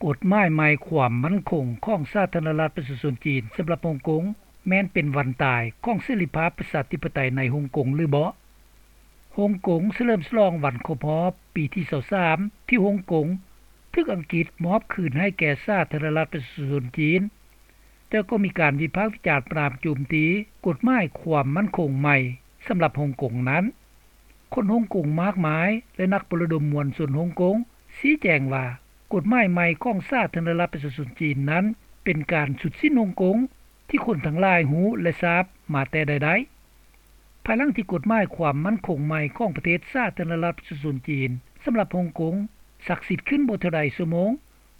ກົດໝາຍໃໝ່ຄວາມໝັ້ນຄົງຂອງສາທາລະນະລັດປະຊາຊົນຈີນສຳລັບຮົງກົງ ແມ່ນເປັນວັນຕາຍຂອງເສລີພາບປະຊາທິປະໄຕໃນຮົງກົງຫຼືບໍ່? ຮົງກົງສະເຫຼີມສະຫຼອງວັນຄົບຮອບປີທີຊາວສາມ ທີ່ຮົງກົງຖືກອັງກິດມອບຄືນໃຫ້ແກ່ສາທາລະນະລັດປະຊາຊົນຈີນ, ແຕ່ກໍມີການວິພາກວິຈານປະນາມໂຈມຕີກົດໝາຍຄວາມໝັ້ນຄົງໃໝ່ສຳລັບຮົງກົງນັ້ນ. ຄົນຮົງກົງມາກມາຍ ແລະ ນັກປະລະດົມມວນຊົນຮົງກົງຊີ້ແຈງວ່າ ກົດໝາຍໃໝ່ຂອງສາທາລະນະລັດປະຊາຊົນຈີນນັ້ນ ເປັນການຊຸດສິ້ນຮົງກົງທີ່ຄົນທັງຫຼາຍຮູ້ ແລະ ຊາບມາແຕ່ໃດໆ. ພາຍຫຼັງທີ່ກົດໝາຍຄວາມໝັ້ນຄົງໃໝ່ຂອງປະເທດສາທາລະນະລັດປະຊາຊົນຈີນສຳລັບຮົງກົງສັກສິດຂຶ້ນບໍ່ເທົ່າໃດຊົ່ວໂມງ,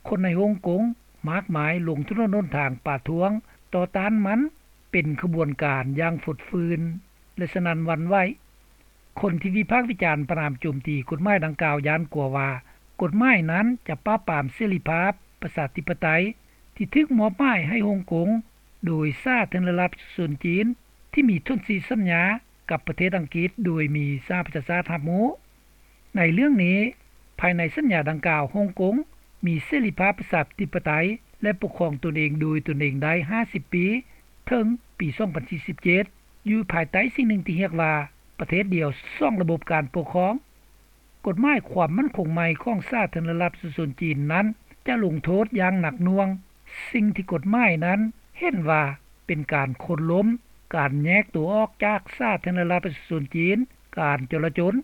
ຄົນໃນຮົງກົງມາກມາຍລົງຖະໜົນຫົນທາງປະທ້ວງຕໍ່ຕ້ານມັນເປັນຂະບວນການຢ່າງຟົດຟື້ນ ແລະ ສະໜັ່ນຫວັ່ນໄຫວ. ຄົນທີ່ວິພາກວິຈານປະນາມໂຈມຕີກົດໝາຍດັ່ງກ່າວຢ້ານກົວວ່າ ກົດໝາຍນັ້ນຈະປາບປາມເສລີພາບປະຊາທິປະໄຕທີ່ຖືກມອບໝາຍໃຫ້ຮົງກົງໂດຍສາທາລະນະລັດປະຊາຊົນຈີນ ທີ່ມີສົນທິສັນຍາກັບປະເທດອັງກິດໂດຍມີສະຫະປະຊາຊາດຮັບຮູ້. ໃນເລື່ອງນີ້, ພາຍໃນສັນຍາດັ່ງກ່າວ, ຮົງກົງມີເສລີພາບປະຊາທິປະໄຕ ແລະ ປົກຄອງຕົນເອງໂດຍຕົນເອງໄດ້ຫ້າສິບປີ ເຖິງປີສອງພັນສີ່ສິບເຈັດ ຢູ່ພາຍໃຕ້ສິ່ງໜຶ່ງທີ່ຮຽກວ່າ ປະເທດດຽວສອງລະບົບການປົກຄອງ. ກົດໝາຍຄວາມໝັ້ນຄົງໃໝ່ຂອງສາທາລະນະລັດປະຊາຊົນຈີນນັ້ນ ຈະລົງໂທດຢ່າງໜັກໜ່ວງສິ່ງທີ່ກົດໝາຍນັ້ນເຫັນວ່າເປັນການໂຄ່ນລົ້ມ, ການແຍກຕົວອອກຈາກສາທາລະນະລັດປະຊາຊົນຈີນ, ການຈໍລະຈົນ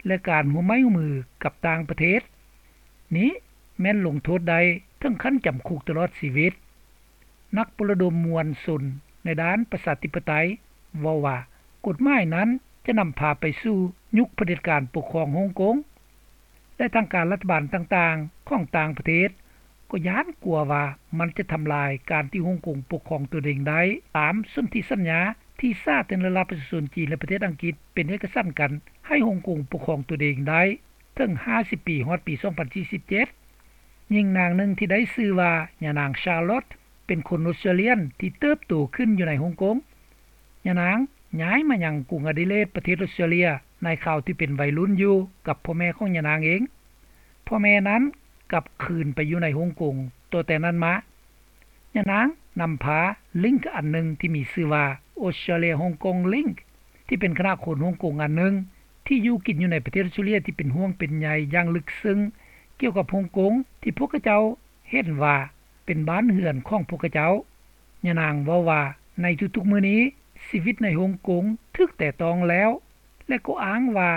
ແລະ ການຮ່ວມໄມ້ຮ່ວມມືກັບຕ່າງປະເທດ. ນີ້ແມ່ນລົງໂທດໄດ້ເຖິງຂັ້ນຈຳຄຸກຕະຫຼອດຊີວິດ. ນັກປະລະດົມມວນຊົນໃນດ້ານປະຊາທິປະໄຕເວົ້າວ່າ ກົດໝາຍນັ້ນຈະນຳພາໄປສູ່ຍຸກຜະເດັດການປົກຄອງຮົງກົງ ແລະ ທາງການລັດຖະບານຕ່າງໆຂອງຕ່າງປະເທດກໍຢ້ານກົວວ່າມັນຈະທຳລາຍການທີ່ຮົງກົງປົກຄອງຕົນເອງໄດ້ ຕາມສົນທິສັນຍາທີ່ສາທາລະນະລັດປະຊາຊົນຈີນ ແລະ ປະເທດອັງກິດເປັນເອກະສັນກັນໃຫ້ຮົງກົງປົກຄອງຕົນເອງໄດ້ເຖິງຫ້າສິບປີ ຮອດປີສອງພັນສີ່ສິບເຈັດ. ຍິງນາງໜຶ່ງທີ່ໄດ້ຊື່ວ່າ ຍານາງ Charlotte ເປັນຄົນອົດສະຕຣາເລຍນທີ່ເຕີບໂຕຂຶ້ນຢູ່ໃນຮົງກົງ. ຍານາງຍ້າຍມາຍັງກຸງອະດີເລດ ປະເທດອົດສະຕຣາເລຍ ໃນຄາວທີ່ເປັນໄວລຸ້ນຢູ່ກັບພໍ່ແມ່ຂອງຍານາງເອງ. ພໍ່ແມ່ນັ້ນກັບຄືນໄປຢູ່ໃນຮົງກົງຕໍ່ແຕ່ນັ້ນມາ. ຍານາງນຳພາລິ້ງອັນໜຶ່ງທີ່ມີຊື່ວ່າ Australia Hong Kong Link ທີ່ເປັນຄະນະຄົນຮົງກົງອັນໜຶ່ງທີ່ຢູ່ກິນຢູ່ໃນປະເທດອົດສະຕຣາເລຍ ທີ່ເປັນຫ່ວງເປັນໃຍຢ່າງເລິກເຊິ່ງກ່ຽວກັບຮົງກົງ ທີ່ພວກຂະເຈົ້າເຫັນວ່າເປັນບ້ານເຮືອນຂອງພວກຂະເຈົ້າ. ຍານາງເວົ້າວ່າ ໃນທຸກໆມື້ນີ້ ຊີວິດໃນຮົງກົງຖືກແຕະຕ້ອງແລ້ວ ແລະ ກໍອ້າງວ່າ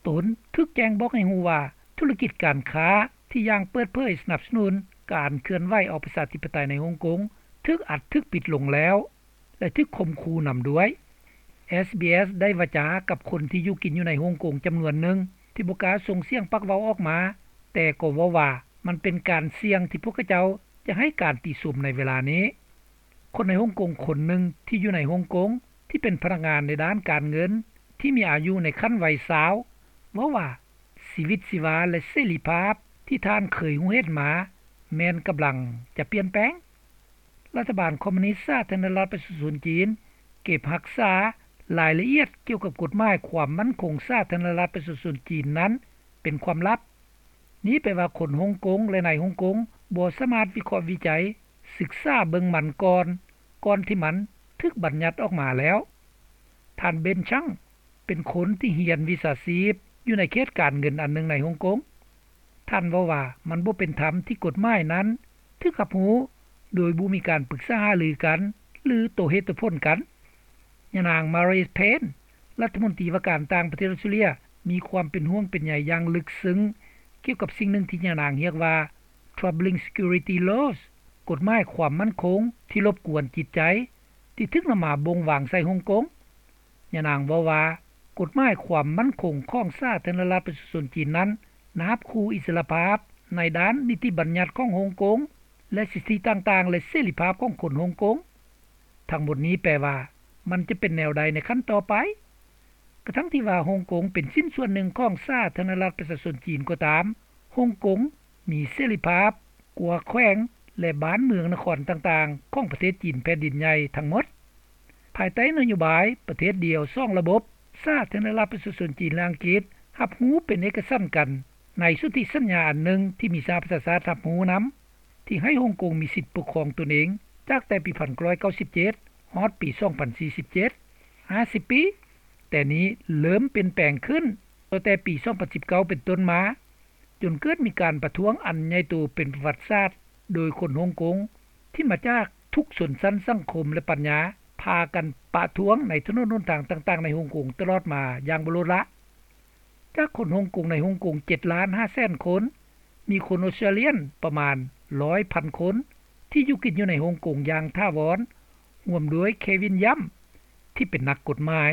ຕົນຖືກແຈ້ງບອກໃຫ້ຮູ້ວ່າ ທຸລະກິດການຄ້າທີ່ຢ່າງເປີດເຜີຍສະໜັບສະໜູນການເຄື່ອນໄຫວອອກປະຊາທິປະໄຕໃນຮົງກົງ ຖືກອັດຖືກປິດລົງແລ້ວ ແລະ ຖືກຂົ່ມຂູ່ນຳດ້ວຍ. ເອສບີເອສ ໄດ້ວາຈາກັບຄົນທີ່ຢູ່ກິນຢູ່ໃນຮົງກົງຈຳນວນໜຶ່ງ ທີ່ບໍ່ກ້າສົ່ງສຽງປາກເວົ້າອອກມາ, ແຕ່ກໍເວົ້າວ່າມັນເປັນການສ່ຽງທີ່ພວກຂະເຈົ້າຈະໃຫ້ການຕິຊົມໃນເວລານີ້. ຄົນໃນຮົງກົງຄົນໜຶ່ງທີ່ຢູ່ໃນຮົງກົງ ທີ່ເປັນພະນັກງານໃນດ້ານການເງິນ ທີ່ມີອາຍຸໃນຂັ້ນໄວຊາວ ເວົ້າວ່າ ຊີວິດຊີວາ ແລະ ເສລີພາບທີ່ທ່ານເຄີຍຮູ້ເຫັນມາ ແມ່ນກຳລັງຈະປ່ຽນແປງ. ລັດຖະບານຄອມມູນິດສາທາລະນະລັດປະຊາຊົນຈີນ ເກັບຮັກສາລາຍລະອຽດກ່ຽວກັບກົດໝາຍຄວາມໝັ້ນຄົງສາທາລະນະລັດປະຊາຊົນຈີນນັ້ນເປັນຄວາມລັບ. ນີ້ແປວ່າຄົນຮົງກົງ ແລະ ໃນຮົງກົງບໍ່ສາມາດວິເຄາະວິໄຈ, ສຶກສາເບິ່ງມັນກ່ອນ, ກ່ອນທີ່ມັນຖືກບັນຍັດອອກມາແລ້ວ. ທ່ານ ເບັນ ຊັງ ເປັນຄົນທີ່ຮຽນວິຊາຊີບຢູ່ໃນເຂດການເງິນອັນໜຶ່ງໃນຮົງກົງ. ທ່ານເວົ້າວ່າ ມັນບໍ່ເປັນທຳທີ່ກົດໝາຍນັ້ນຖືກຮັບຮູ້ໂດຍບໍ່ມີການປຶກສາຫາລືກັນ ຫຼື ໂຕເຫດໂຕຜົນກັນ. ຍານາງ ມາຣີ ເພນ ລັດຖະມົນຕີວ່າການຕ່າງປະເທດອົດສະຕຣາເລຍ ມີຄວາມເປັນຫ່ວງເປັນໃຍຢ່າງເລິກເຊິ່ງກ່ຽວກັບສິ່ງໜຶ່ງທີ່ຍານາງຮຽກວ່າ Troubling Security Laws ກົດໝາຍຄວາມໝັ້ນຄົງທີ່ລົບກວນຈິດໃຈ ທີ່ຖືກນຳມາບົ່ງວາງໃສ່ຮົງກົງ. ຍານາງເວົ້າວ່າ ກົດໝາຍຄວາມໝັ້ນຄົງຂອງສາທາລະນະລັດປະຊາຊົນຈີນນັ້ນ ນາບຂູ່ອິດສະຫຼະພາບໃນດ້ານນິຕິບັນຍັດຂອງຮົງກົງ ແລະ ສິດທິຕ່າງໆ ແລະ ເສລີພາບຂອງຄົນຮົງກົງ. ທັງໝົດນີ້ແປວ່າ ມັນຈະເປັນແນວໃດໃນຂັ້ນຕໍ່ໄປ? ກະທັ່ງທີ່ວ່າຮົງກົງເປັນຊິ້ນສ່ວນໜຶ່ງຂອງສາທາລະນະລັດປະຊາຊົນຈີນກໍຕາມ, ຮົງກົງມີເສລີພາບກວ່າແຂວງ ແລະ ບ້ານເມືອງນະຄອນຕ່າງໆຂອງປະເທດຈີນແຜ່ນດິນໃຫຍ່ທັງໝົດ. ພາຍໃຕ້ນະໂຍບາຍປະເທດດຽວສອງລະບົບ, ສາທາລະນະລັດປະຊາຊົນຈີນ ແລະ ອັງກິດຮັບຮູ້ເປັນເອກະສັນກັນໃນສົນທິສັນຍາອັນໜຶ່ງທີ່ມີສະຫະປະຊາຊາດຮັບຮູ້ນຳ. ທີ່ໃຫ້ຮົງກົງມີສິດປົກຄອງຕົນເອງ ຈາກແຕ່ປີ 1997 ຮອດປີ 2047 50 ປີ, ແຕ່ນີ້ເລີ່ມປ່ຽນແປງຂຶ້ນຕັ້ງແຕ່ປີ 2019 ເປັນຕົ້ນມາ, ຈົນເກີດມີການປະທ້ວງອັນໃຫຍ່ໂຕເປັນປະຫວັດສາດ ໂດຍຄົນຮົງກົງທີ່ມາຈາກທຸກຊົນຊັ້ນສັງຄົມ ແລະ ປັນຍາ ພາກັນປະທ້ວງໃນຖະໜົນຫົນທາງຕ່າງໆໃນຮົງກົງຕະຫຼອດມາຢ່າງບໍ່ລົດລະ. ຈາກຄົນຮົງກົງໃນຮົງກົງ 7 ລ້ານ 5 ແສນຄົນ, ມີຄົນອົດສະຕຣາເລຍປະມານ 100 ພັນຄົນ ທີ່ຢູ່ກິນຢູ່ໃນຮົງກົງຢ່າງຖາວອນ, ຮ່ວມດ້ວຍ Kevin Yam ທີ່ເປັນນັກກົດໝາຍ.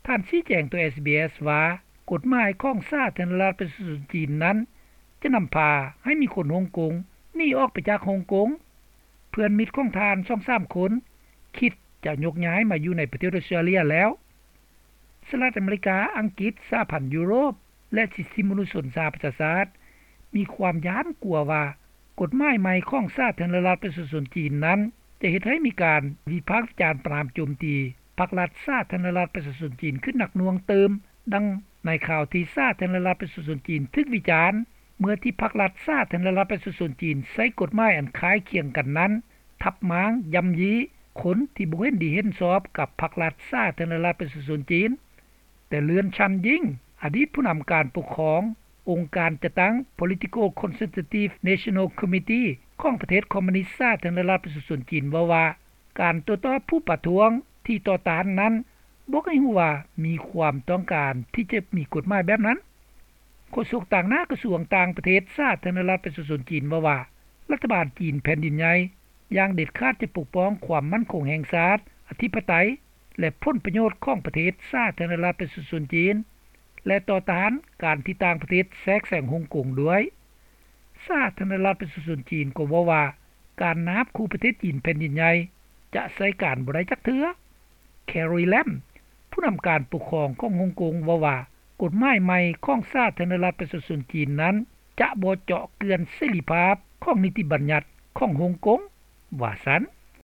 ທ່ານຊີ້ແຈງຕໍ່ SBS ວ່າ ກົດໝາຍຂອງສາທາລະນະລັດປະຊາຊົນຈີນນັ້ນ ຈະນຳພາໃຫ້ມີຄົນຮົງກົງໜີອອກໄປຈາກຮົງກົງ. ເພື່ອນມິດຂອງທ່ານ ສອງສາມ ຄົນ ຄິດຈະຍົກຍ້າຍມາຢູ່ໃນປະເທດອົດສະຕຣາເລຍແລ້ວ. ສະຫະລັດອາເມລິກາ, ອັງກິດ, ສະຫະພັນຢູໂຣບ ແລະ ສິດທິມະນຸດຊົນສະຫະປະຊາຊາດ ມີຄວາມຢ້ານກົວວ່າ ກົດໝາຍໃໝ່ຂອງສາທາລະນະລັດປະຊາຊົນຈີນນັ້ນ ຈະເຮັດໃຫ້ມີການວິພາກວິຈານປະນາມໂຈມຕີພັກລັດສາທາລະນະລັດປະຊາຊົນຈີນຂຶ້ນໜັກໜ່ວງຕື່ມ, ດັ່ງໃນຄາວທີ່ສາທາລະນະລັດປະຊາຊົນຈີນຖືກວິຈານ ເມື່ອທີ່ພັກລັດສາທາລະນະລັດປະຊາຊົນຈີນໃຊ້ກົດໝາຍອັນຄ້າຍຄຽງກັນນັ້ນ ທັບມ້າງ, ຢ້ຳຢີ້ຄົນທີ່ບໍ່ເຫັນດີເຫັນຊອບກັບພັກລັດສາທາລະນະລັດປະຊາຊົນຈີນ. ແຕ່ເລື່ອນ Chan Ying, ອະດີດຜູ້ນຳການປົກຄອງອົງການຈັດຕັ້ງ Political Consultative National Committee ຂອງປະເທດຄອມມູນິດສາທາລະນະລັດປະຊາຊົນຈີນ ເວົ້າວ່າ ການໂຕ້ຕອບຜູ້ປະທ້ວງທີ່ຕໍ່ຕ້ານນັ້ນ ບອກໃຫ້ຮູ້ວ່າມີຄວາມຕ້ອງການທີ່ຈະມີກົດໝາຍແບບນັ້ນ. ໂຄສົກຕາງໜ້າກະຊວງຕ່າງປະເທດສາທາລະນະລັດປະຊາຊົນຈີນເວົ້າວ່າ ລັດຖະບານຈີນແຜ່ນດິນໃຫຍ່ຢ່າງເດັດຂາດຈະປົກປ້ອງຄວາມໝັ້ນຄົງແຫ່ງຊາດ, ອະທິປະໄຕ ແລະ ຜົນປະໂຫຍດຂອງປະເທດສາທາລະນະລັດປະຊາຊົນຈີນ ແລະ ຕໍ່ຕ້ານການທີ່ຕ່າງປະເທດແຊກແຊງຮົງກົງດ້ວຍ. ສາທາລະນະລັດປະຊາຊົນຈີນກໍເວົ້າວ່າ ການນາບຂູ່ປະເທດຈີນແຜ່ນດິນໃຫຍ່ຈະໃຊ້ການບໍ່ໄດ້ຈັກເທື່ອ. Carrie Lam, ຜູ້ນຳການປົກຄອງຂອງຮົງກົງເວົ້າວ່າ ກົດໝາຍໃໝ່ຂອງສາທາລະນະລັດປະຊາຊົນຈີນນັ້ນ ຈະບໍ່ເຈາະເຈື່ອນເສລີພາບຂອງນິຕິບັນຍັດຂອງຮົງກົງ ວ່າຊັ້ນ.